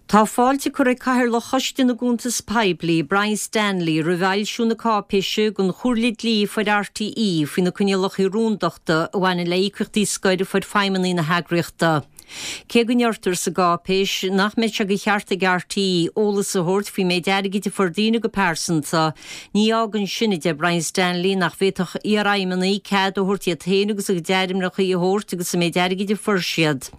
Tá fáilte curtha ag Cathaoirleach Choiste na gCuntas Poiblí, Brian Stanley, roimh fhoilsiú na cáipéise don Chomhairle Dlí a fuair RTÉ faoi na coinníollacha rúndachta a bhaineann le híocaíochtaí scoir a fuair feidhmeannaigh na heagraíochta. Cé go ndeirtear sa gcáipéis nach mbeidh sé de cheart ag RTÉ eolas a thabhairt faoin méid airgid a fuair daoine go pearsanta, ní fhágann sin, a deir Brian Stanley, nach bhféadfadh iarfheidhmeannaigh cead a thabhairt iad féin agus a gcuid ainmneacha a thabhairt agus an méid airgid a fuair siad.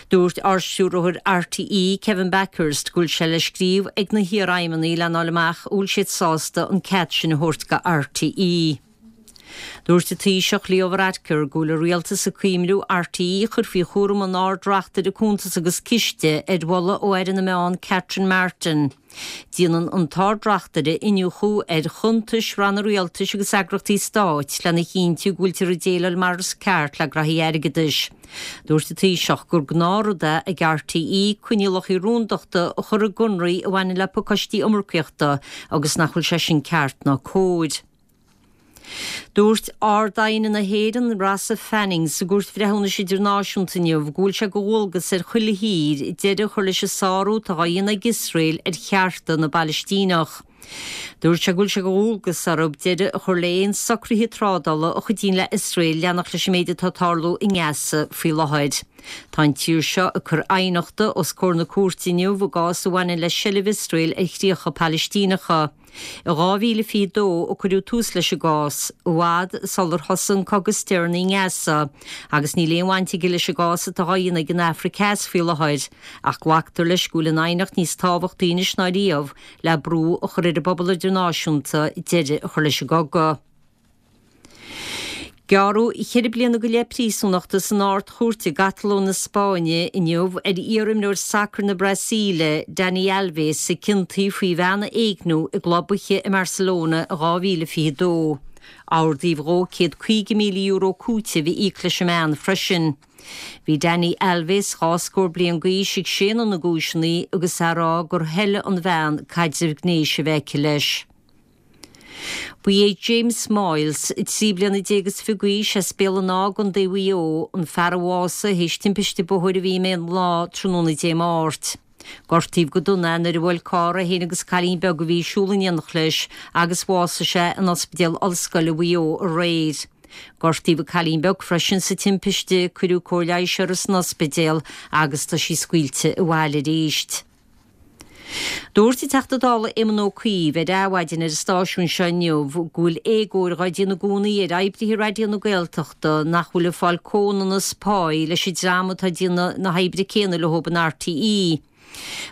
Dúirt Ardstiúrthóir RTÉ, Kevin Bakhurst, go bhfuil sé le scríobh ag na hiarfheidhmeannaigh lena fháil amach an bhfuil siad sásta an cead sin a thabhairt go RTÉ. Dúirt an Taoiseach Leo Varadkar go bhfuil an Rialtas ag cuimhniú RTÉ a chur faoi chúram an Ard-Reachtaire Cuntas agus Ciste ar mholadh ó Aire na Meán Catherine Martin. Déanann an tArd-Reachtaire iniúchadh ar chuntais ranna rialtais agus eagraíochtaí stáit lena chinntiú go bhfuiltear ag déileáil mar is ceart le graithí airgeadais. Dúirt an Taoiseach gur gnáthrud é ag RTÉ coinníollacha rúndachta a chur i gconarthaí a bhaineann le pacáistí iomarcaíochta agus nach bhfuil sé sin ceart ná cóir. Dúirt Ard-Aighne na hÉireann, Rossa Fanning, sa gCúirt Bhreithiúnais Idirnáisiúnta inniu go bhfuil sé de dhualgas ar chuile thír deireadh a chur leis an sárú atá á dhéanamh ag Iosrael ar chearta na bPalaistíneach. Dúirt sé go bhfuil sé de dhualgas orthu deireadh a chur le haon socruithe trádála a chuidíonn le Iosrael leanacht leis an méid atá ag tarlú i nGaza faoi láthair. Tá an tír seo ag cur aighneachta os comhair na cúirte inniu i gcás a bhaineann le seilbh Iosrael ar chríocha Palaistíneacha. I 2022 a cuireadh tús leis an gcás, i bhfad sular thosaigh an cogadh is deireanaí i nGaza, agus níl aon bhaint aige leis an gcás atá á dhéanamh ag an Afraic Theas faoi láthair, ach glactar leis go bhfuil an aighneacht níos tábhachtaí anois ná riamh le brú a chur ar an bpobal idirnáisiúnta deireadh a chur leis an gcogadh. Gearradh cheithre bliana go leith príosúnachta san Ard-Chúirt i gCatalóin na Spáinne inniu ar iar-imreoir sacair na Brasaíle, Dani Alves, a ciontaíodh faoi bhean a éigniú i gclub oíche i mBarcelona in 2022. Ordaíodh dhó €150,000 cúitimh a íoc leis an mbean freisin. Bhí Dani Alves, dhá scór bliain d'aois, ag séanadh na gcúiseanna agus é ag rá gur thoiligh an bhean caidreamh gnéis a bheith aici leis. Ba é James Moyles, 13 bliana is 20 d'aois, as Béal an Átha i gContae Mhaigh Eo, an fear a bhásaigh théis timpiste bóthair a bhí i mBéal an Átha tráthnóna Dé Máirt. Gortaíodh go dona é nuair a bhuail carr é féin agus cailín beag a bhí ag siúl in éineacht leis agus bhásaigh sé in Ospidéal Ollscoile Mhaigh Eo aréir. Gortaíodh an cailín beag freisin sa timpiste, cuireadh cóir leighis uirthi san ospidéal agus tá sí scaoilte abhaile arís. Dúirt an Teachta Dála Éamon Ó Cuív ar Adhmhaidin ar an stáisiún seo inniu go bhfuil éagóir dhá déanamh i gcónaí ar oibrithe Raidió na Gaeltachta nach bhfuil ag fáil comhionannas páí leis an dream atá ag déanamh na hoibre céanna leo in RTÉ.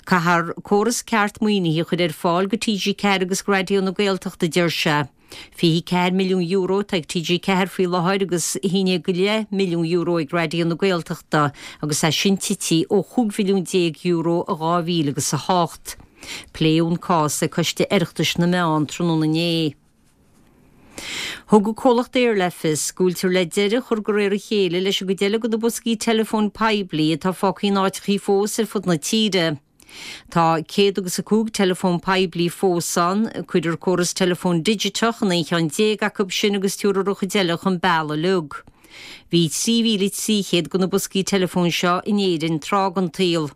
Caithfear córas ceart maoinithe a chur ar fáil go TG4 agus go Raidió na Gaeltachta, a deir sé. €24 milliún atá ag TG4 faoi láthair agus €11.5 milliún ag Raidió na Gaeltachta agus é sin tite ó €15 mhilliún i 2008. Pléadh an cás ag Coiste Oireachtais na Meán tráthnóna inné. Thug an comhlacht Eir le fios go bhfuiltear le deireadh a chur de réir a chéile leis an gcuid eile de na boscaí teileafóin poiblí atá fágtha in áiteachaí fós ar fud na tíre. Tá céad agus a 5 teileafón poiblí fós ann. Cuirfear córas teileafóin digiteach in 11 cheann acu sin agus tabharfar an chuid eile chun bealaigh uilig. Bhí 3,300 de na boscaí teileafóin seo in Éirinn tráth den tsaol.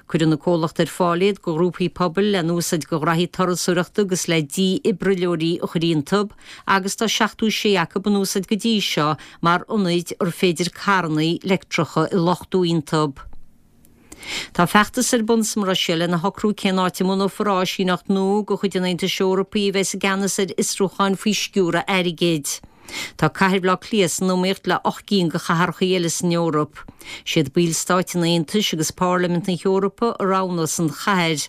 Cuireann an comhlacht ar fáil iad do ghrúpaí pobail le n-úsáid do ghraithí turasóireachta agus le dífhibrileoirí a chur iontu agus tá 76 acu in úsáid go dtí seo mar ionaid ar féidir carranna leictreacha a luchtú iontu. Tá feachtas ar bun sa mBruiséil lena shocrú cén áit a mbunófar áisíneacht nua de chuid an Aontais Eorpaigh a bheas i gceannas ar fhiosrúcháin faoi sciúradh airgid. Tá cathair Bhaile Átha Cliath san iomaíocht le 8 gcinn de chathracha eile san Eoraip. Siad ballstáit an Aontais agus Pairlimint na hEorpa a roghnós an chathair.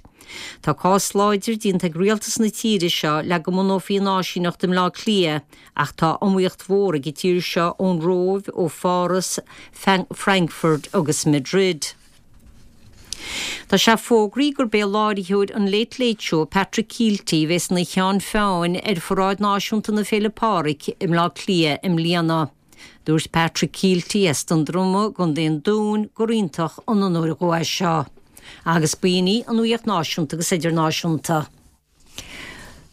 Tá cás láidir déanta ag rialtas na tíre seo le go mbunófaí an áisíneacht i mBleá Cliath Ach tá iomaíocht mhór ag an tír seo ón Róimh, ó Pháras, Frankfurt agus Madrid. Tá sé fógraithe gurb é láithreoir an Late Late Show, Patrick Kielty, a bheas ina cheann feadhain ar Pharáid Náisiúnta na Féile Pádraig i mBleá Cliath i mbliana. Dúirt Patrick Kielty as Dún Droma i gContae an Dúin gur iontach an onóir dhó é seo. Agus b'in í an nuacht náisiúnta agus idirnáisiúnta.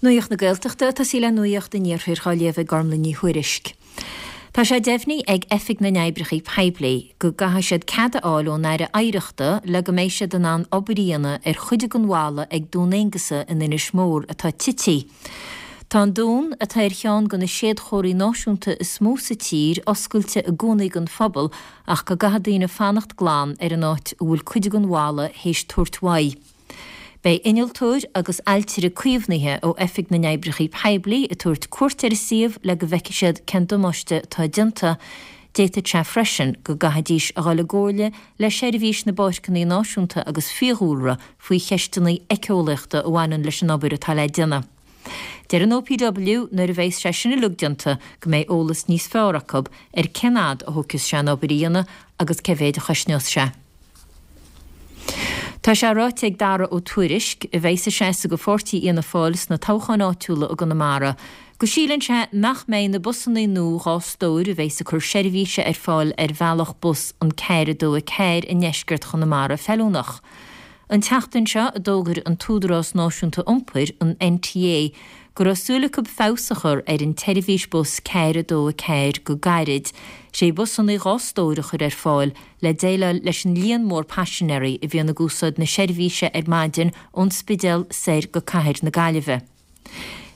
Nuacht na Gaeltachta ag tosaí le Nuacht an Iarthair á léamh ag Gormlaith Ní Thuairisg. Tá sé deimhnithe ag Oifig na nOibreacha Poiblí go gcaithfidh siad cead a fháil ón Aire Oidhreachta le go mbeidh siad in ann obair a dhéanamh ar chuid den bhalla ag Dún Aonghasa in Inis Mór atá tití. Tá an dún, atá ar cheann de na séadchomharthaí náisiúnta is mó sa tír, oscailte i gcónaí don phobal ach go gcaithfidh daoine fanacht glan ar an áit a bhfuil cuid den bhalla théis tabhairt uaidh. Beidh innealtóir agus ailtire caomhnaithe ó Oifig na nOibreacha Poiblí ag tabhairt cuairt ar an suíomh le go bhfeicfidh siad cén damáiste atá déanta. D'fhéadfadh sé freisin go gcaithfidís a dhul i gcomhairle le Seirbhís na bPáirceanna Náisiúnta agus Fiadhúlra faoi cheisteanna éiceolaíochta a bhaineann leis an obair atá le déanamh. Deir an OPW nuair a bheas sé sin uilig déanta go mbeidh eolas níos fearr acu ar cén fhad a thógfas sé an obair a dhéanamh agus cé mhéid a chosnós sé. Tá sé ráite ag Dara Ó Tuairisg, a bheas ag seasamh do pháirtí Fhianna Fáil sna toghcháin áitiúla i gConamara, go síleann sé nach mbeidh na busannaí nua 2 stór a bheas ag cur seirbhíse ar fáil ar bhealach bus an 4 2 4 i ndeisceart Chonamara feiliúnach. An tseachtain seo a d'fhógair an tÚdarás Náisiúnta Iompair, an NTA, go raibh súil acu feabhas a chur ar an tseirbhís bus 4 2 4 go gairid, 6 bhusannaí 2 stór a chur ar fáil le déileáil leis an líon mór paisinéirí a bhíonn ag úsáid na seirbhíse ar maidin ón Spidéal soir go cathair na Gaillimhe.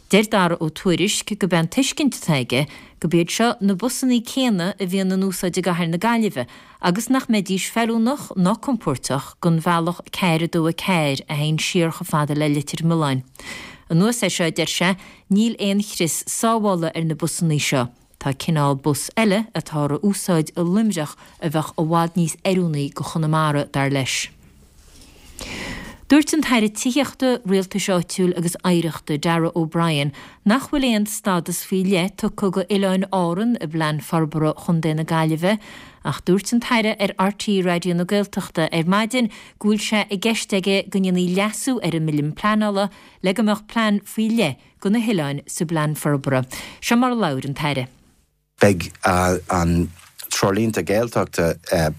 Deir Dara Ó Tuairisg gurb é an tuiscint atá aige gurb iad seo na busannaí céanna a bhíonn in úsáid i gcathair na Gaillimhe agus nach mbeidís feiliúnach ná compóirteach don bhealach 4 2 4 a théann siar chomh fada le Leitir Mealláin. Anuas air seo, deir sé, níl aon chrios sábhála ar na busannaí seo. Tá cineál bus eile atáthar a úsáid i Luimneach a bheadh i bhfad níos oiriúnaí go Chonamara, dar leis. Dúirt an tAire Tithíochta, Rialtais Áitiúil agus Oidhreachta, Darragh O'Brien, nach bhfuil aon stádas faoi leith tugtha go Oileáin Árann i bPlean Forbartha Chontae na Gaillimhe ach dúirt an tAire ar RTÉ Raidió na Gaeltachta ar maidin go bhfuil sé i gceist aige go ndéanfaí leasú ar an mBille Pleanála le go mbeadh plean faoi leith go na hoileáin sa bPlean Forbartha. Seo mar a labhair an tAire. Beidh an Treoirlínte Gaeltachta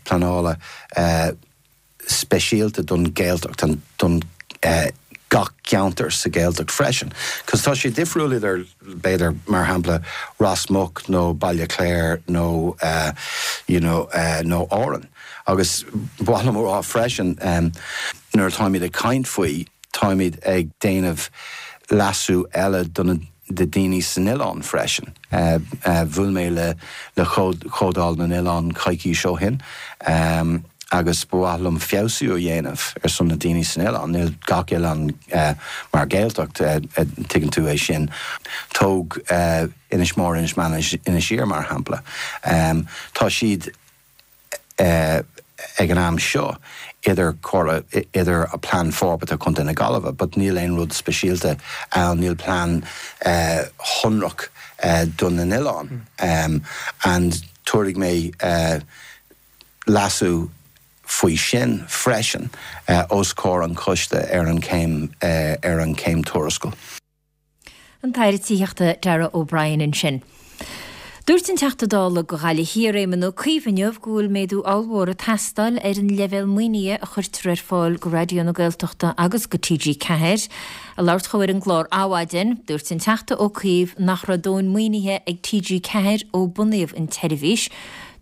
pleanála speisialta don Ghaeltacht, don gach ceantar sa Ghaeltacht freisin. Cos tá sé difriúil idir, b'fhéidir, mar shampla, Ros Muc nó Baile Chláir nó you know nó Árainn. Agus ba mhaith liom a rá freisin, nuair atáimid ag caint faoi, Táimid ag déanamh leasú eile do na daoine san oileán freisin. Bhuail mé le le Comhdháil na nOileán coicís ó shin agus ba mhaith liom feabhsú a dhéanamh ar son na daoine san oileán. Níl gach oileán mar Ghaeltacht, tuigeann tú é sin. Tóg Inis Mór, Inis Meáin, Inis Oírr mar shampla. Tá siad. ag an am seo idir comhairle, idir Plean Forbartha Chontae na Gaillimhe but níl aon rud speisialta ann, níl plean shonrach do na n-oileán and tabharfaidh mé leasú faoi sin freisin os comhair an choiste ar an chéim ar an chéim tuarascáil. An tAire Tithíochta Darragh O'Brien ansin. Dúirt an Teachta Dála do Ghaillimh Thiar Éamon Ó Cuív inniu go bhfuil méadú ollmhór ag teastáil ar an leibhéal maoinithe a chuirtear ar fáil go Raidió na Gaeltachta agus go TG4. Ag labhairt dhó ar an gclár Adhmhaidin, dúirt an Teachta Ó Cuív nach raibh dóthain maoinithe ag TG4 ó bunaíodh an tseirbhís.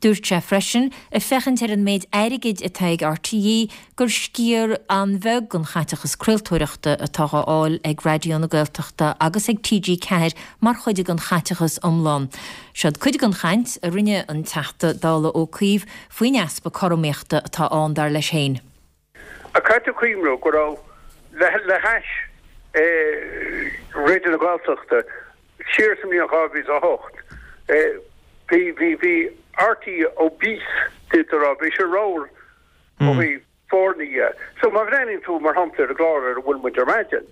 Dúirt sé freisin, ag féachaint ar an méid airgid atá ag RTÉ, gur sciar an-bheag den chaiteachas craoltóireachta atá á fháil ag Raidió na Gaeltachta agus ag TG4 mar chuid den chaiteachas iomlán. Seod cuid den chaint a rinne an Teachta Dála Ó Cuív faoin easpa cothromaíochta atá ann, dar leis féin. Ach caithfidh tú cuimhniú go raibh, le hais Raidió na Gaeltachta siar sa mbliain 2008, bhí, bhí, bhí RTÉ obese, d'fhéadfá a rá, bhí sé ramhar ó thaobh foirne dhe. So má bhreathnaíonn tú mar shampla ar an gclár ar a bhfuil muid ar maidin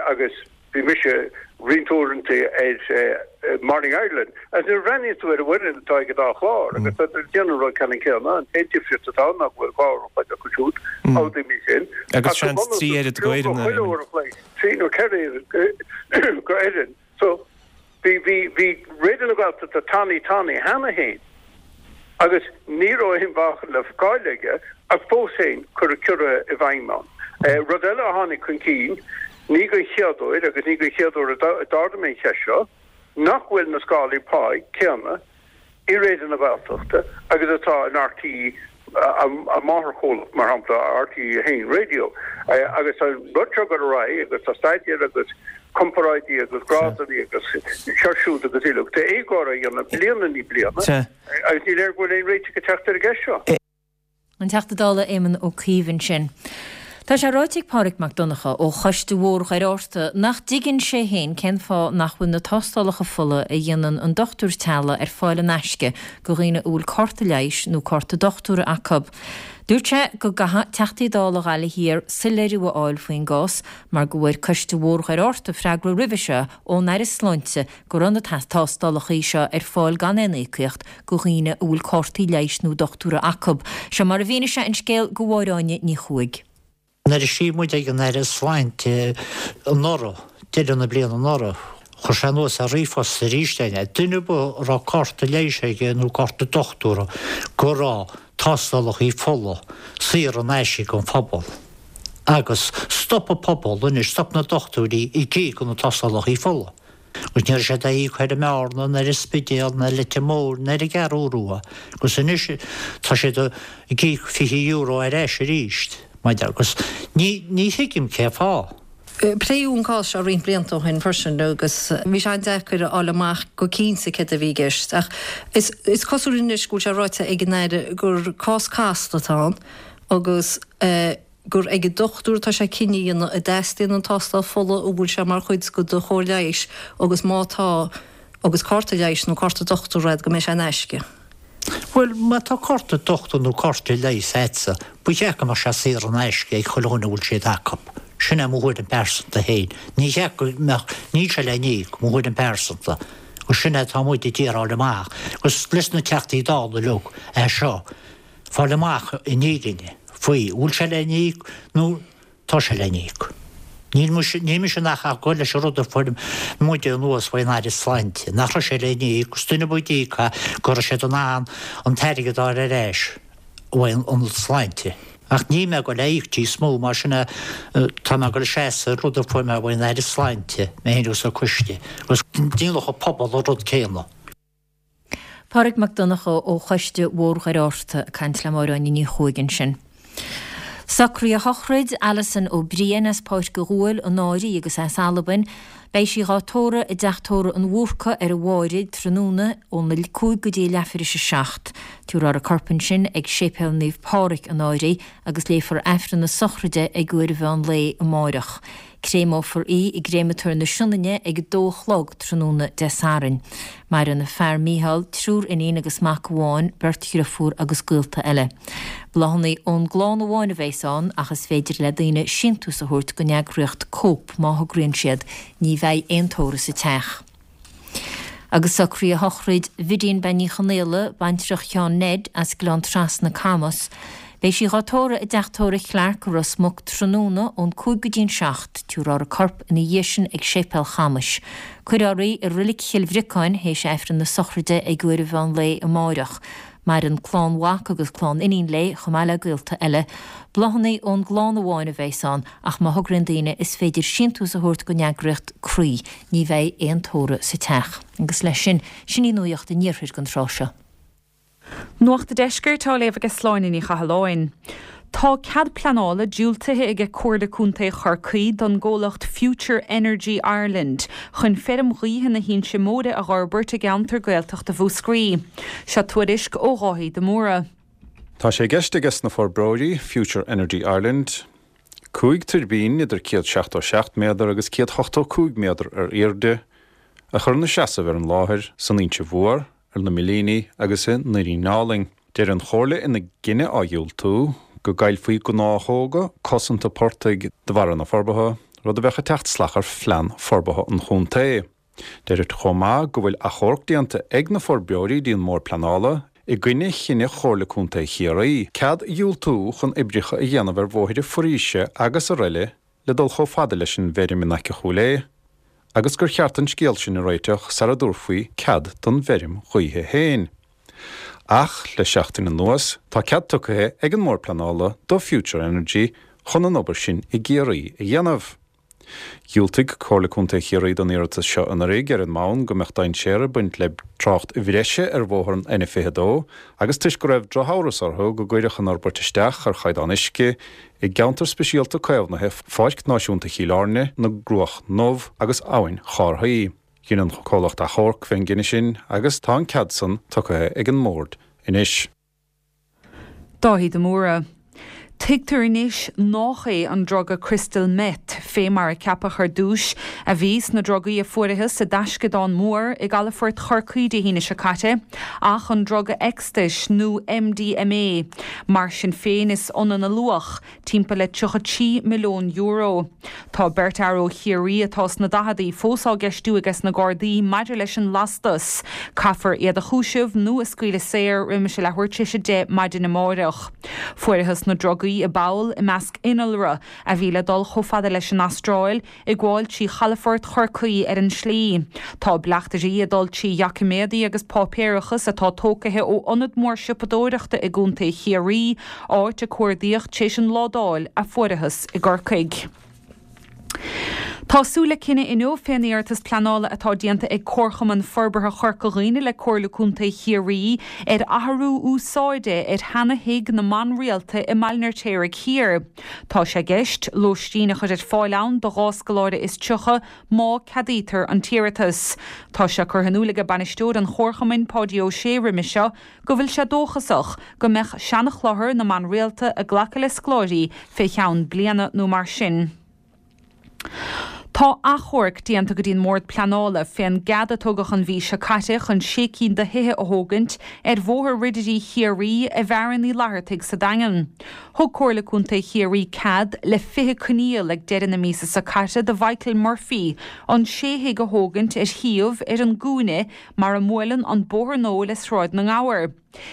agus bhí mise roinnt uaireanta ar Morning Ireland agus nuair a bhreathnaíonn tú ar an bhfoireann atá ag an dá chlár agus tá siad ag déanamh an rud ceannann céanna, an t-aon difríocht atá ann ná go bhfuil 2 uair an chloig acu siúd, amhlaidh mé sin. Agus seans 3 oiread d'fhoireann. Chuile uair an chloig, 3 nó 4 oiread d'fhoireann. So, bhí, bhí, bhí Raidió na Gaeltachta tanaí tanaí cheana féin agus ní raibh aon mheáchan le fáil aige ach fós féin cuireadh ciorruithe i bhfeidhm ann. Rud eile a tháinig chun cinn, ní den chéad uair agus ní den chéad uair a d'ardaigh mé an cheist seo, nach bhfuil na scálaí páí céanna. I Raidió na Gaeltachta agus atá in RTÉ, a máthairchomhlacht, mar shampla, RTÉ 1 Radio. Agus tá an rud seo ag dul ar aghaidh agus tá staidéir agus comparáidí agus grádanna agus seo siúd agus uilig. Tá éagóir á dhéanamh bliain i ndiaidh bliana agus ní léir go bhfuil aon réiteach ag teacht ar an gceist seo. An Teachta Dála Éamon Ó Cuív ansin. Tá sé ráite ag Pádraig Mac Donncha ó Choiste Bhóthar Dhoire Fhatharta nach dtuigeann sé féin cén fáth nach bhfuil na tástálacha fola a dhéanann an dochtúir teaghlaigh ar fáil in aisce go dhaoine a bhfuil cárta leighis nó cárta dochtúra acu. Dúirt sé go gcaithfidh Teachtaí Dála Ghaillimh Thiar soiléiriú a fháil faoin gcás mar go bhfuair Coiste Bhóthar Dhoire Fhatharta freagra roimhe seo ón Aire Sláinte go raibh na tástálacha seo ar fáil gan aon íocaíocht go dhaoine a bhfuil cártaí leighis nó dochtúra acu. Seo mar a mhínigh sé an scéal go Máire Áine Ní Chuaig. Nuair a scríobh muid ag an Aire Sláinte anuraidh, deireadh na bliana anuraidh, chuir sé anuas ar ríomhphost arís é, duine ar bith a raibh cárta leighis aige nó cárta dochtúra go raibh tástálacha fola saor in aisce don phobal. Agus stop an pobal anois, stop na dochtúirí ag íoc do na tástálacha fola. Agus ní raibh siad á íoc ar an mBearna, ná ar an Spidéal, ná ar Leitir Móir, ná ar an gCeathrú Rua. Agus anois tá siad ag íoc €20 ar ais arís, maidir, agus ní, ní thuigim cé fáth. Pléadh an cás seo roinnt blianta ó shin freisin agus bhí sé an-deacair a fháil amach go cinnte céard a bhí i gceist. Ach is cosúil anois go bhfuil sé ráite ag an Aire gur cás casta atá ann agus gur ag an dochtúir atá sé cinneadh a dhéanamh an dteastaíonn an tástáil fola, an bhfuil sé mar chuid de do chóir leighis agus má tá, agus cárta leighis nó cárta dochtúra agat, go mbeidh sé in aisce. Bhuel, má tá cárta dochtúra nó cárta leighis agatsa, ba cheart go mbeadh sé saor in aisce ag chuile dhuine a bhfuil siad acu. Sin é mo thuairim pearsanta féin. Ní cheart go mbeadh, níl sé le n-íoc, mo thuairim pearsanta. Agus sin é atá muid ag iarraidh fháil amach. Agus leis na Teachtaí Dála uilig é seo. fáil amach an fhírinne faoi, an bhfuil sé le n-íoc nó tá sé le n-íoc. Níl mise, níl mise ach ag gabháil leis an rud a fuair muide anuas faoin Aire Sláinte, nach raibh sé le n-íoc, agus duine ar bith a d'íoc é, go raibh siad in ann an t-airgead a fháil ar ais uaidh an Sláinte. Ach níl mé ag gabháil a íoc níos mó, mar sin é, tá mé ag gabháil a seasamh ar rud a fuair mé uaidh an Aire Sláinte, mé féin agus an coiste, agus déanfadh an pobal an rud céanna. Pádraig Mac Donncha ó Choiste Bhóthar Dhoire Fhatharta ag caint le Máire Áine Ní Chuaig ansin. Socruithe shochraid Alison Ó Briain as Páirc a' Ghuail, an Áirí agus as Albain. Beidh sí dhá tórramh i dTeach Tórraimh an Bhúrcaigh ar an Bháire tráthnóna óna 5 go dtí a leathuair théis a 7. Tabharfar a corp ansin ag Séipéal Naomh Pádraig, an Áirí, agus léifear Aifreann na sochraide ag uair an mheán lae amáireach. Créamófar í i gCréamatóir na Sionainne ag a dó a chlog tráthnóna Dé Sathairn. Maireann a fear Mícheál, triúr iníon agus mac amháin, beirt dhriofúr agus gaolta eile. Bláthanna ón gclann amháin a bheas ann ach is féidir le daoine síntiús a thabhairt don eagraíocht Cope má thograíonn siad. Ní bheidh aon tórramh sa teach. Agus socruithe shochraid Bhidín Bean Ní Chonaola, baintreach Sheáin Ned, as Gleann Trasna, Camas. Beidh sí dhá tórramh i dTeach Tórraimh Clarke i Ros Muc tráthnóna ón 5 go dtí an 7. Tabharfar a corp ina dhiaidh sin ag Séipéal Chamais. Cuirfear í i Roilic Chill Bhriocáin théis Aifreann na sochraide ag uair an mheán lae amáireach. Maireann clann mhac agus clann iníon léi, chomh maith le gaolta eile. Bláthanna ón gclann amháin a bheas ann, ach má thograíonn daoine is féidir síntiús a thabhairt don eagraíocht Croí. Ní bheidh aon tórramh sa teach. Agus leis sin, sin í nuacht an iarthair don tráth seo. Nuacht an Deiscirt á léamh aige Sláine Ní Chathalláin. Tá cead pleanála diúltaithe aige Comhairle Contae Chorcaí don gcomhlacht Future Energy Ireland chun feirm ghaoithe na hInse Móire a dh'fhorbairt i gceantar Gaeltachta Mhúscraí. Seo tuairisc ó Dháithí de Mórdha. Tá sé i gceist aige sna forbróirí, Future Energy Ireland, 5 tuirbín idir 177 méadar agus 185 méadar ar airde a chur ina seasamh ar an láthair san Inse Mhór, ar na Millíní agus i nDoirín Álainn. Deir an Chomhairle ina gcinneadh á dhiúltú go gcaillfí gnáthóga cosanta portaigh de bharra na forbartha, rud a bheadh ag teacht salach ar phlean forbartha an chontae. Deirtear chomh maith go bhfuil achomharc déanta ag na forbróirí dtí an mBord Pleanála i gcoinne chinneadh Chomhairle Contae Chiarraí cead a dhiúltú chun oibreacha a dhéanamh ar bhóithre foraoise agus araile le dul chomh fada leis an bhfeirm in aice Chúil Aodha agus gur cheart an scéal sin a réiteach sara dtabharfaí cead don bhfeirm ghaoithe féin. Ach le seachtain anuas tá cead tugtha ag an mBord Pleanála do Future Energy chun an obair sin i gCiarraí a dhéanamh. Dhiúltaigh Comhairle Contae Chiarraí don iarratas seo anuraidh ar an mbonn go mbeadh dainséar ag baint le trácht bhreise ar bhóthar an N22 agus toisc go raibh drochamhras orthu go gcuirfeadh an fhorbairt isteach ar chaighdeán uisce i gceantar speisialta caomhnaithe Pháirc Náisiúnta Chill Airne, na gCruach nDubh agus Abhainn Chárthaí. Dhein an comhlacht achomharc fén gcinneadh sin agus tá an cead san tugtha ag an mBord anois. Dáithí de Mórdha. Tuigtear anois nách é an druga crystal meth, fé mar a ceapadh ar dtúis, a bhí sna drugaí a fuarathas i dtaisceadán mór i gcalafort Chorcaí Dé hAoine seo caite, ach an druga ecstais nó MDMA. Mar sin féin is ionann a luach, timpeall le €33 milliún. Tá beirt fhear ó Chiarraí atá sna daicheadaí fós á gceistiú ages na Gardaí maidir leis an lastas. Caithfear iad a chúiseamh nó a scaoileadh saor roimis a leathuair tar éis a 10 maidin amáireach. Fuarathas na drugaí i bpoll i measc innealra a bhí le dul chomh fada leis an Astráil, ag gabháil trí chalafort Chorcaí ar an slí. Tá bleachtairí ag dul trí dhoiciméadaí agus páipéarachas atá tócaithe ó ionad mór siopadóireachta i gContae Chiarraí, áit a cuardaíodh tar éis an ládáil a fuarathas i gCorcaigh. Tá súil le cinneadh inniu fén iarratas pleanála atá déanta ag Comharchumann Forbartha Chorca Dhuibhne le Comhairle Contae Chiarraí ar athrú úsáide ar sheana-thigh na mban rialta i mBaile an Fheirtéaraigh Thiar. Tá sé i gceist lóistín a chur ar fáil ann do dhá scoláire is 30 má ceadaítear an t-iarratas. Tá sé curtha in iúl aige bainisteoir an Chomharchumainn, Páidí Ó Sé roimhe seo go bhfuil sé dóchasach go mbeadh seana-chlochar na mban rialta ag glacadh le scoláirí fé cheann bliana nó mar sin. Tá achomharc déanta go dtí an mBord Pleanála fén gcead a tugadh an mhí seo caite chun sé cinn de thithe a thógaint ar Bhóthar Ridirí Chiarraí i bhFearann Uí Fhlathartaigh sa Daingean. Thug Comhairle Contae Chiarraí cead le 20 coinníoll ag deireadh na míosa seo caite do Mhichael Murphy an sé thigh a thógaint ar shuíomh ar an gcúinne mar a mbuaileann an bóthar nua le Sráid na nGabhar.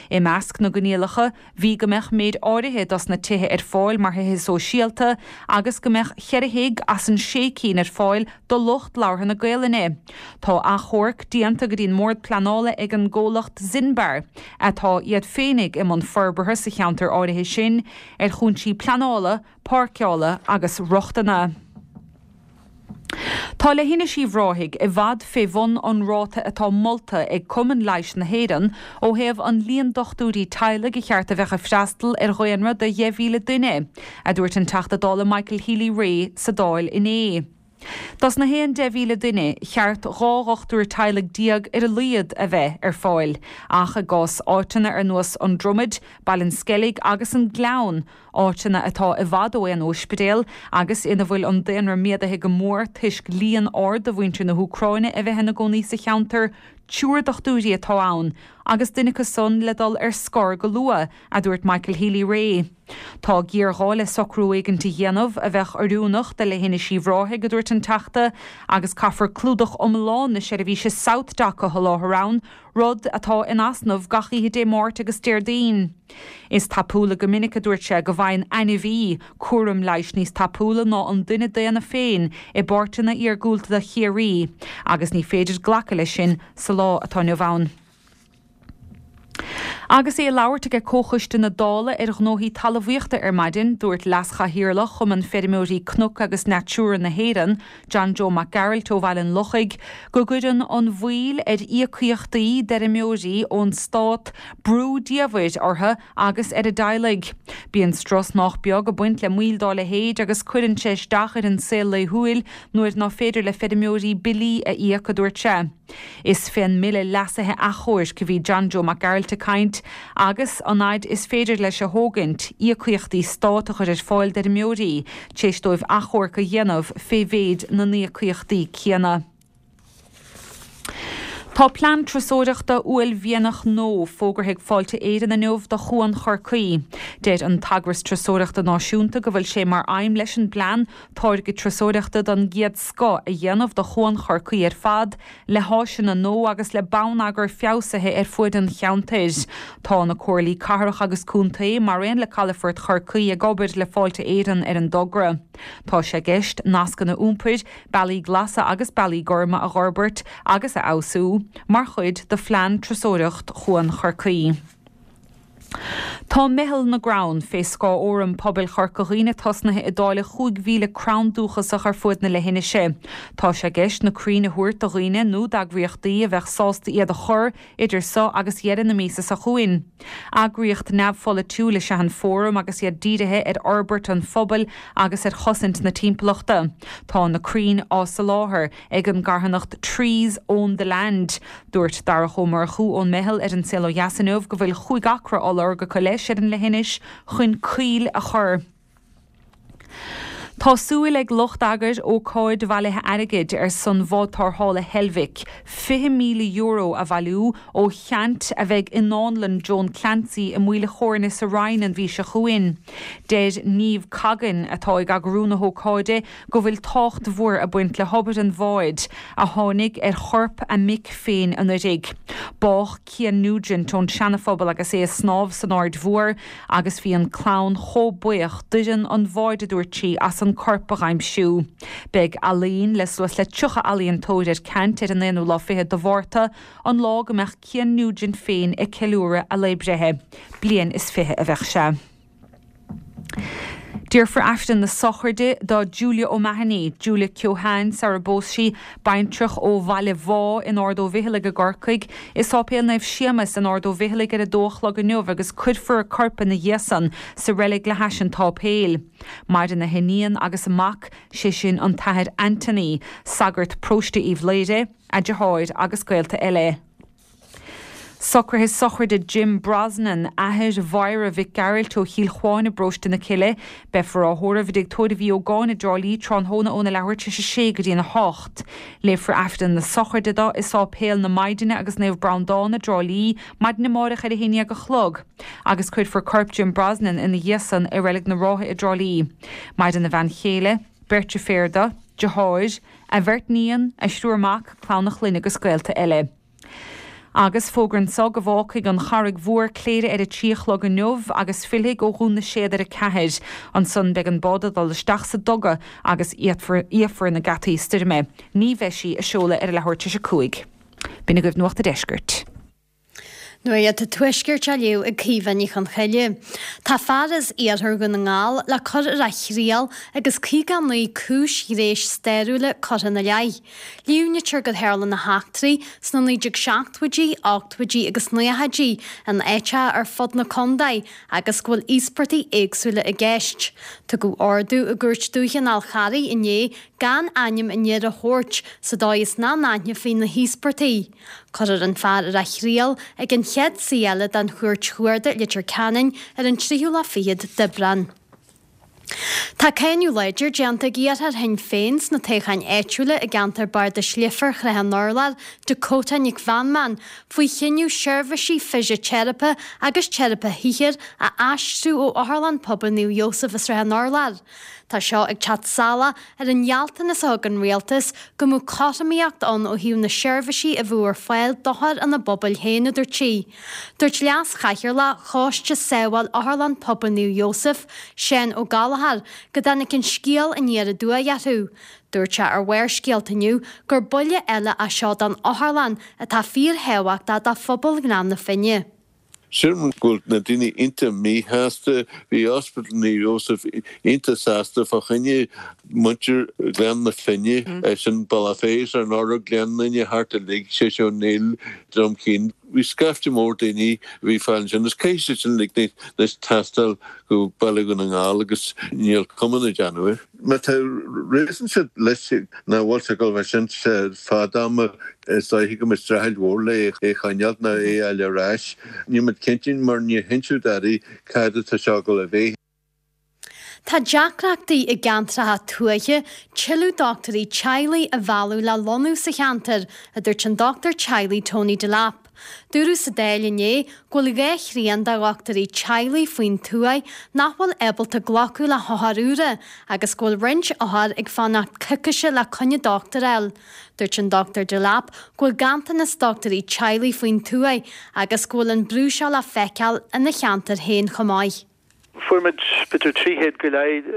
I measc na gcoinníollacha bhí go mbeadh méid áirithe dos na tithe ar fáil mar thithe sóisialta agus go mbeadh cheithre thigh as an sé cinn ar fáil do lucht labhartha na Gaolainne. Tá achomharc déanta go dtí an mBord Pleanála ag an gcomhlacht Zinbar, atá iad féinig i mbun forbartha sa cheantar áirithe sin, ar chúinsí pleanála, páirceála agus rochtana. Tá Leithinis Uíbh Ráthaigh i bhfad fé bhun an ráta atá molta ag Cumann Leighis na hÉireann ó thaobh an líon dochtúirí teaghlaigh a cheart a bheadh ag freastal ar dhaonra de 10,000 duine, a dúirt an Teachta Dála Michael Healy-Rae sa Dáil inné. Dos na haon 10,000 duine, cheart 12 dhochtúir teaghlaigh ar a laghad a bheith ar fáil, ach i gcás áiteanna ar nós An Dromaid, Baile an Sceilg agus an Gleann, áiteanna atá i bhfad ó aon óispidéal agus ina bhfuil an daonra méadaithe go mór toisc líon ard de mhuintir na hÚcráine a bheith ina gcónaí sa cheantar, triúr dochtúirí atá ann agus duine acu san le dul ar scor go luath, a dúirt Michael Healy-Rae. Tá géarghá le socrú éigint a dhéanamh a bheadh oiriúnach do Leithinis Uíbh Ráthaigh, a dúirt an Teachta, agus caithfear clúdach iomlán na seirbhíse SouthDoc a sholáthar ann, rud atá in easnamh gach oíche Dé Máirt agus Déardaoin. Is tapúla go minic, a dúirt sé, go bhfaigheann ainmhí cúram leighis níos tapúla ná an duine daonna féin i bpáirteanna iargúlta de Chiarraí agus ní féidir glacadh leis sin sa lá atá inniu ann. Agus é ag labhairt aige Comhchoiste na Dála ar Ghnóthaí Talmhaíochta ar maidin, dúirt Leas-Chathaoirleach Chumann Feirmeoirí Cnoc agus Natura na hÉireann, John Joe Mac Gearailt ó Bhaile an Lochaigh, go gcuireann an mhoill ar íocaíochtaí d'fheirmeoirí ón stát brú diamhair orthu agus ar a dteaghlaigh. Bíonn strus nách beag ag baint le moill dá leithéid agus cuireann sé isteach ar an saol laethúil nuair ná féidir le feirmeoirí billí a íoc, a dúirt sé. Is fén mBille Leasaithe Achomhairc a bhí John Joe Mac Gearailt ag caint agus an fhaid is féidir leis a thógaint, íocaíochtaí stát a chur ar fáil d'fheirmeoirí tar éis dóibh achomharc a dhéanamh fé mhéid na n-íocaíochtaí céanna. Tá plean turasóireachta uaillmhianach nua fógartha ag Fáilte Éireann inniu do Chuan Chorcaí. Deir an t-eagras turasóireachta náisiúnta go bhfuil sé mar aidhm leis an bplean táirge turasóireachta den gcéad scoth a dhéanamh de Chuan Chorcaí ar fad, le háiseanna nua agus le bonneagar feabhsaithe ar fuaid an cheantair. Tá na comhairlí cathrach agus contae, mar aon le Calafort Chorcaí, ag obair le Fáilte Éireann ar an dtogra. Tá sé i gceist nascanna iompair, bealaí glasa agus bealaí gorma a dh'fhorbairt agus a fheabhsú, mar chuid de phlean turasóireacht Chuan Chorcaí. Tá Meitheal na gCrann, fé scáth Fhóram Pobail Chorca Dhuibhne tosnaithe ag dáileadh 5,000 crann dúchasach ar fuaid na leithinise. Tá sé i gceist na crainn a thabhairt do dhaoine nó d'eagraíochtaí a bheadh sásta iad a chur idir so agus dheireadh na míosa seo chugainn. Eagraíocht neamhpholaitiúil is ea an Fóram agus iad dírithe ar fhorbairt an phobail agus ar chosaint na timpeallachta. Tá na crainn á soláthar ag an gcarthanacht Trees Own the Land. Dúirt Darach Ó Murchú ón Meitheal ar An Saol Ó Dheas inniu go bhfuil chúig acra á lorg acu leis ar an leithinis chun coill a chur. Tá súil ag lucht eagair ócáid bhailithe airgid ar son bhád tarrthála Heilbhic, €20,000 a bhailiú ó cheant a bheidh i nDánlann Joan Clancy i Maoil a' Chóirne sa Rinn an mhí seo chugainn. Deir Niamh Coggan, atá ag eagrú na hócáide, go bhfuil tábhacht mhór ag baint le hobair an bháid, a tháinig ar chorp a mic féin anuraidh. Bádh Cian Nugent ón Seanaphobal agus é ag snámh san Aird Mhór agus bhí an clann chomh buíoch d'fhoireann an bháid, a dúirt sí, as an corp a dh'aimsiú. Beidh ealaín le suas le 30 ealaíontóir ar ceant ar an aonú lá fichead de Mhárta, an lá go mbeadh Cian Nugent féin ag ceiliúradh a lae breithe. Bliain is fiche a bheadh sé. Déarfar Aifreann na sochraide do Julia O'Mahony, Julia Keohane sara bpós sí, baintreach ó Bhaile Bhá in Ard Ó Bhficheallaigh i gCorcaigh, i Sáipéal Naomh Séamas in Ard Ó Bhficheallaigh ar a dó a chlog inniu agus cuirfear a corp ina dhiaidh san sa reilig le hais an tsáipéil. Maireann a hiníon agus a mac, sé sin an tAthair Anthony, sagart paróiste Uíbh Laoghaire, a deartháir agus gaolta eile. Socruithe sochraide Jim Brosnan, athair Mháire Mhic Gearailt ó Chill Chuáin i bparóiste na Cille. Beifear á thórramh i dTigh Tórraimh Uí Ógáin i dTrá Lí tráthnóna óna leathuair tar éis a sé go dtí'n 8. Léifear Aifreann na sochraide dó i Sáipéal na Maighdine agus Naomh Breandán i dTrá Lí maidin amáireach ar a haon dhéag a chlog agus cuirfear corp Jim Brosnan ina dhiaidh san i Reilig na Rátha i dTrá Lí. Maireann a bhean chéile, beirt deirféar dó, deartháir, a bheirt níon, a thriúr mac, clann a chlainne agus gaolta eile. Agus fógra anso go bhfágfaidh an Charraig Mhór Cléire ar a trí a chlog inniu agus fillfidh ó Dhún na Séad ar a ceathair. Ansan beidh an bád ag dul isteach sa duga agus íocfar na geataí stoirme. Ní bheidh sí ag seoladh ar a leathuair tar éis a cúig. B'in agaibh Nuacht a' Deiscirt. Nuacht an Tuaiscirt á léamh ag Caoimhe Ní Chonchoille. Tá fear as iarthar Dhún na nGall le cur ar a thriail agus 59 cúis ghnéis stairiúla curtha ina leith. Líomhnaítear gur tharla na heachtraí sna 1970idí, 80idí agus 90idí in áiteacha ar fud na contae agus go bhfuil íospartaigh éagsúla i gceist. Tugadh ordú i gCúirt Dúiche an Fhál Charraigh inné gan ainm an fhir a thabhairt sa dóigh is nach n-aithneofaí na híospartaigh. Cuirfear an fear ar a thriail ag an chéad suí eile den Chúirt Chuarda i Leitir Ceanainn ar an tríú lá fichead d'Aibreán. Tá cáineadh láidir déanta ag iarrthóir Shinn Féin sna toghcháin áitiúla i gceantar Bardais Leifear Shraith an Urláir, Dakota Nic Mheanman, faoi chinneadh seirbhísí fisiteiripe agus teiripe shaothair a aistriú ó Otharlann Pobail Naomh Iósaf i Srath an Urláir. Tá seo ag teacht salach ar an ngealltanas a thug an Rialtas go mbeadh cothromaíocht ann ó thaobh na seirbhísí a bheadh ar fáil d'othair ina bpobail féin, a dúirt sí. Dúirt Leas-Chathaoirleach Choiste Sábháil Otharlann Pobail Naomh Iósaf, Seán Ó Gallchóir, go dtáinig an scéal aniar aduaidh orthu. Dúirt sé ar Bharrscéalta inniu gur buille eile é seo don otharlann atá fíorthábhachtach do phobal Ghleann na Finne. Sílim go bhfuil na daoine iontach míshásta. Bhí Ospidéal Naomh Iósaf iontach sásta fá choinne muintir Ghleann na Finne, sin Bealach Féich, Srath an Urláir, Gleann Fhinne, thart uilig, Séiséal Ó Néill, Droim Cinn. Bhí scaifte mór daoine a bhí fáil ansin agus caithfidh siad sin uilig anois taisteal go Baile Dhún na nGall agus níl cuma ná déanamh air. Má tá réasún siad leis nach bhfuil sé ag dul bheith sin fad ama, is dóiche go mbeidh streachailt mhór le é a choinneáilt nó é a fháil ar ais. Níl muid cinnte mar níor hinseadh dadaí cad atá seo ag dul a bheith. Tá deacrachtaí i gceantracha tuaithe tuilleadh dochtúirí teaghlaigh a mhealladh le lonnú sa cheantar, a dúirt an dochtúir teaghlaigh Tony Delap. Dúradh sa Dáil inné go bhfuil dhá thrian de dhochtúirí teaghlaigh faoin tuaith nach bhfuil ábalta glacadh le hothair úra agus go bhfuil roinnt othar ag fanacht coicíse le coinne dochtúir a fháil. Dúirt an Dr Delap go bhfuil ganntanas dochtúirí teaghlaigh faoin tuaith agus go bhfuil an brú seo le feiceáil ina cheantar féin chomh maith. Fuair muid b'fhéidir 300 go leith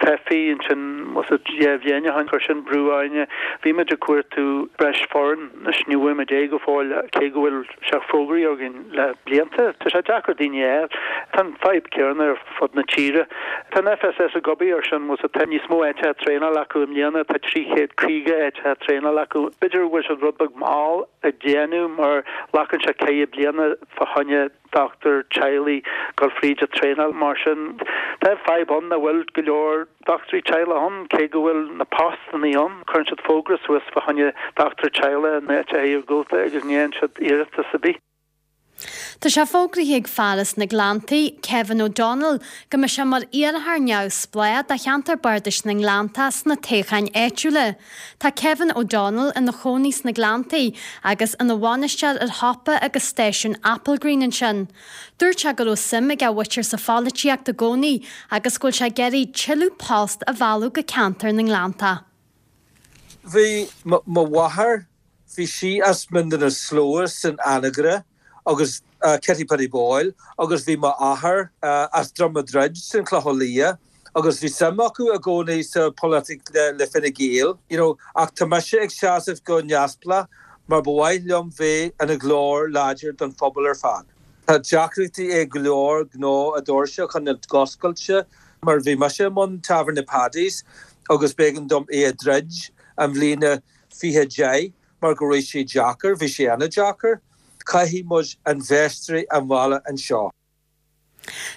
teifigh ansin bhfuil a fhios agat 2 bhliain ó shin. Chuir sin brú orainne. Bhí muid ag cuartú breis foireann. Anois ní bhfuair muid é go fóill cé go bhfuil sé fógraithe againn le blianta. Tá sé deacair daoine a fháil. Tá an fadhb céanna ar fud na tíre. Tá an FSS ag obair ar sin, bhfuil a fhios agat, tá níos mó áiteacha traenála acu i mbliana, tá 350 áiteacha traenála acu. B'fhéidir go bhfuil siad rud beag mall ag déanamh mar glacann sé ceithre bliana fá choinne dochtúir teaghlaigh dul fríd an traenáil. Mar sin, tá fadhb ann nach bhfuil go leor dochtúirí teaghlaigh ann, cé go bhfuil na postannaí ann. Cuireann siad fógra suas fá choinne dochtúir teaghlaigh in áiteacha iargúlta agus ní fhaigheann siad iarratas ar bith. Tá sé fógraithe ag fear as na Gleanntaí, Kevin O'Donnell, go mbeidh sé mar iarrthóir neamhspleách do cheantar bardais na nGleanntach sna toghcháin áitiúla. Tá Kevin O'Donnell ina chónaí sna Gleanntaí agus ina bhainisteoir ar shiopa agus stáisiún Applegreen ansin. Dúirt sé go raibh suim ag a mhuintir sa pholaitíocht i gcónaí agus go bhfuil sé ag iarraidh tuilleadh post a mhealladh go ceantar na nGleanntach. Bhí mo mháthair Bhí sí as Mín na Slua san Anagaire agus Kitty Paddy Boyle agus bhí m'athair as Droim a' Druid san Chlochán Liath agus bhí suim acu i gcónaí sa pholaitíocht le Fine Gael you know ach tá mise ag seasamh go neamhspleách mar ba mhaith liom bheith ina ghlór láidir don phobal ar fad. Tá deacrachtaí ag go leor gnó a doirse a choinneáil oscailte mar bhí mise i mbun Tábhairne Paddy's agus b'éigean dom é a dhruid an bhliain 2010 mar go raibh sé deacair, bhí sé an-deacair. Caithfidh muid infheisteoirí a mhealladh anseo.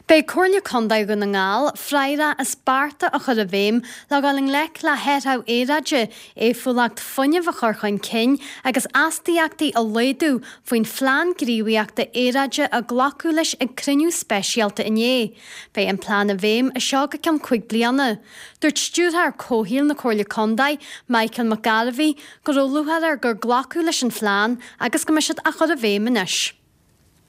Beidh Comhairle Contae Dhún na nGall freagrach as bearta a chur i bhfeidhm le dhul i ngleic le hathrú aeráide, éifeachtúlacht fuinnimh a chur chun cinn agus astaíochtaí a laghdú faoin Phlean Gníomhaíochta Aeráide a glacadh leis ag cruinniú speisialta inné. Beidh an plean i bhfeidhm as seo go ceann 5 bliana. Dúirt Stiúrthóir Comhshaoil na Comhairle Contae, Michael McGarvey, go raibh lúcháir air gur glacadh leis an phlean agus go mbeidh siad á chur i bhfeidhm anois.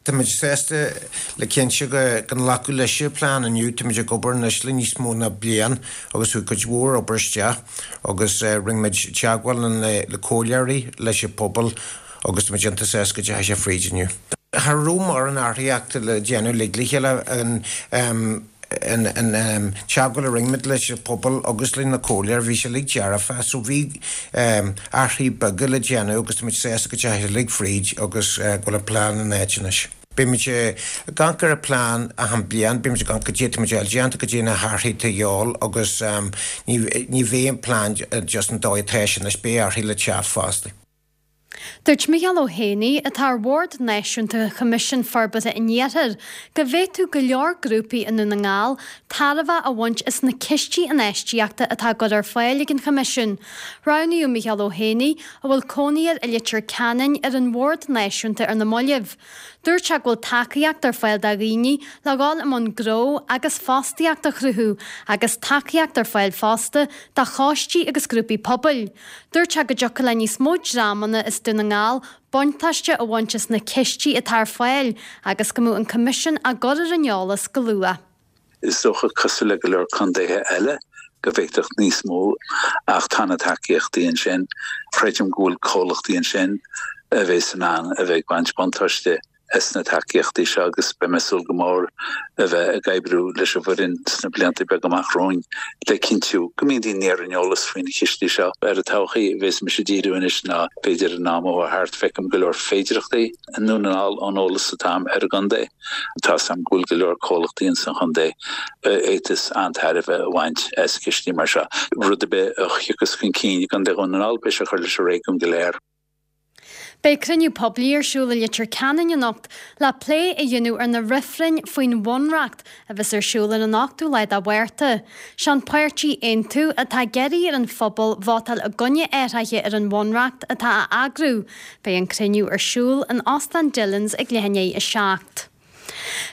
Táimid sásta le cinnte go nglacadh leis an plean inniu. Táimid ag obair anois le níos mó ná bliain agus chuaigh cuid mhór obair isteach agus rinne muid teagmháil le comhairleoirí, leis an pobal agus táimid iontach sásta go dteachaigh sé fríd inniu. Cha raibh mórán athraíochta le déanamh uilig le chéile. An teagmháil a rinne muid leis an pobal agus leis na comhairleoirí, bhí sé uilig dearfa so bhí athruithe beaga le déanamh agus tá muid sásta go dteachaigh sé uilig fríd agus go bhfuil an plean in áit anois. Beidh muid ag amharc ar an plean achan bliain, beidh muid ag amharc goidé atá muid a fháil déanta, goidé na hathruithe atá a dhíobháil agus ní bheidh an plean just an dóigh atá sé anois, beidh athruithe le teacht fosta. Dúirt Micheál Ó hÉanaí, atá ar Bhord Náisiúnta Choimisiún Forbartha an Iarthair, go bhféadfadh go leor grúpaí i nDún na nGall tairbhe a bhaint as na cistí infheistíochta atá á gcur ar fáil ag an Choimisiún. Roghnaíodh Micheál Ó hÉanaí, a bhfuil cónaí air i Leitir Ceanainn, ar an Bhord Náisiúnta ar na mallaibh. Dúirt sé go bhfuil tacaíocht ar fáil do dhaoine le dhul i mbun gnó agus fostaíocht a chruthú agus tacaíocht ar fáil fosta do choistí agus grúpaí pobail. Dúirt sé go dtiocfadh le níos mó dreamanna as Dún na nGall buntáiste a bhaint as na cistí atá ar fáil agus go mbeadh an Coimisiún á gcur ar an eolas go luath. Is dócha, cosúil le go leor contaetha eile, go bhféadfadh níos mó, ach tá na tacaíochtaí ansin. Creidim go bhfuil comhlachtaí ansin a bheas in ann a bheith ag baint buntáiste as na tacaíochtaí seo agus beidh mé ag súil go mór a bheith ag oibriú leis an bhfoireann sna blianta beaga amach romhainn le cinntiú go mbíonn daoine ar an eolas faoi na cistí seo. Ar an todhchaí a bheas mise ag díriú anois ná b'fhéidir in am atá thart feicim go leor féidireachtaí i nDún na nGall ón eolas atá agam ar an gcontae. Tá 's agam go bhfuil go leor comhlachtaí ins an chontae a fhéadfas an-tairbhe a bhaint as cistí mar seo. Rud ar bith a thiocfas chun cinn i gContae Dhún na nGall beidh sé ag cur leis an réigiún go léir. Beidh cruinniú poiblí ar siúl i Leitir Ceanainn anocht le plé a dhéanamh ar na reifrinn faoin Bhunreacht a bheas ar siúl ar an 8ú lá de Mhárta. Sé an páirtí Aontú atá ag iarraidh ar an phobal vótáil i gcoinne athraithe ar an Bhunreacht atá á eagrú. Beidh an cruinniú ar siúl in Óstán Dillons ag leath i ndiaidh a 7.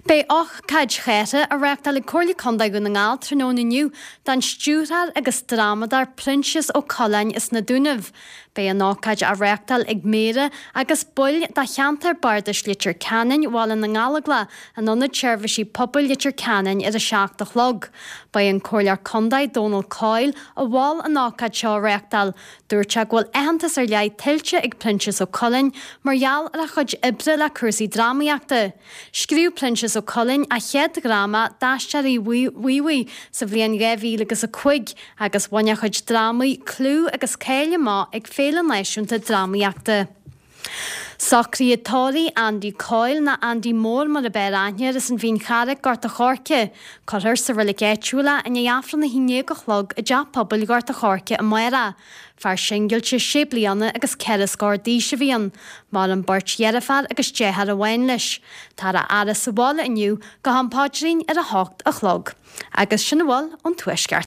Beidh ócáid chathartha á reáchtáil ag Comhairle Contae Dhún na nGall tráthnóna inniu don stiúrthóir agus drámadóir Proinsias Ó Coileáin as na Dúnaibh. Beidh an ócáid á reáchtáil ag Méara agus baill de cheantar Bardais Leitir Ceanainn, Bhaile na nGallóglach, in Ionad Seirbhísí Pobail Leitir Ceanainn ar a 7 a chlog. Ba é an Comhairleoir Contae Dónal Coyle a mhol an ócáid seo a reáchtáil. Dúirt sé go bhfuil aitheantas ar leith tuillte ag Proinsias Ó Coileáin mar gheall ar a chuid oibre le cúrsaí drámaíochta. Scríobh Proinsias. Proinsias Ó Coileáin a chéad dhráma, D'Aisteoirí Mhuimhaigh, sa bhliain 2000 agus 5 agus bhain a chuid drámaí clú agus cáil amach ag Féile Náisiúnta Drámaíochta. Socruithe tórraimh Andy Coyle, nó Andy Mór mar ab fhearr aithne air, as an Mhín Charraic, Gort a' Choirce. Cuirfear sa reilig áitiúil é i ndiaidh Aifreann a 11 a chlog i dTeach Pobail Ghort a' Choirce amárach. Fear singilte sé bliana agus ceithre scór d'aois a bhí ann. Maireann beirt dheirféar agus deartháir amháin leis. Táthar á fhaire sa bhaile inniu go ham paidrín ar a hocht a chlog. Agus sin a bhfuil ón Tuaisceart.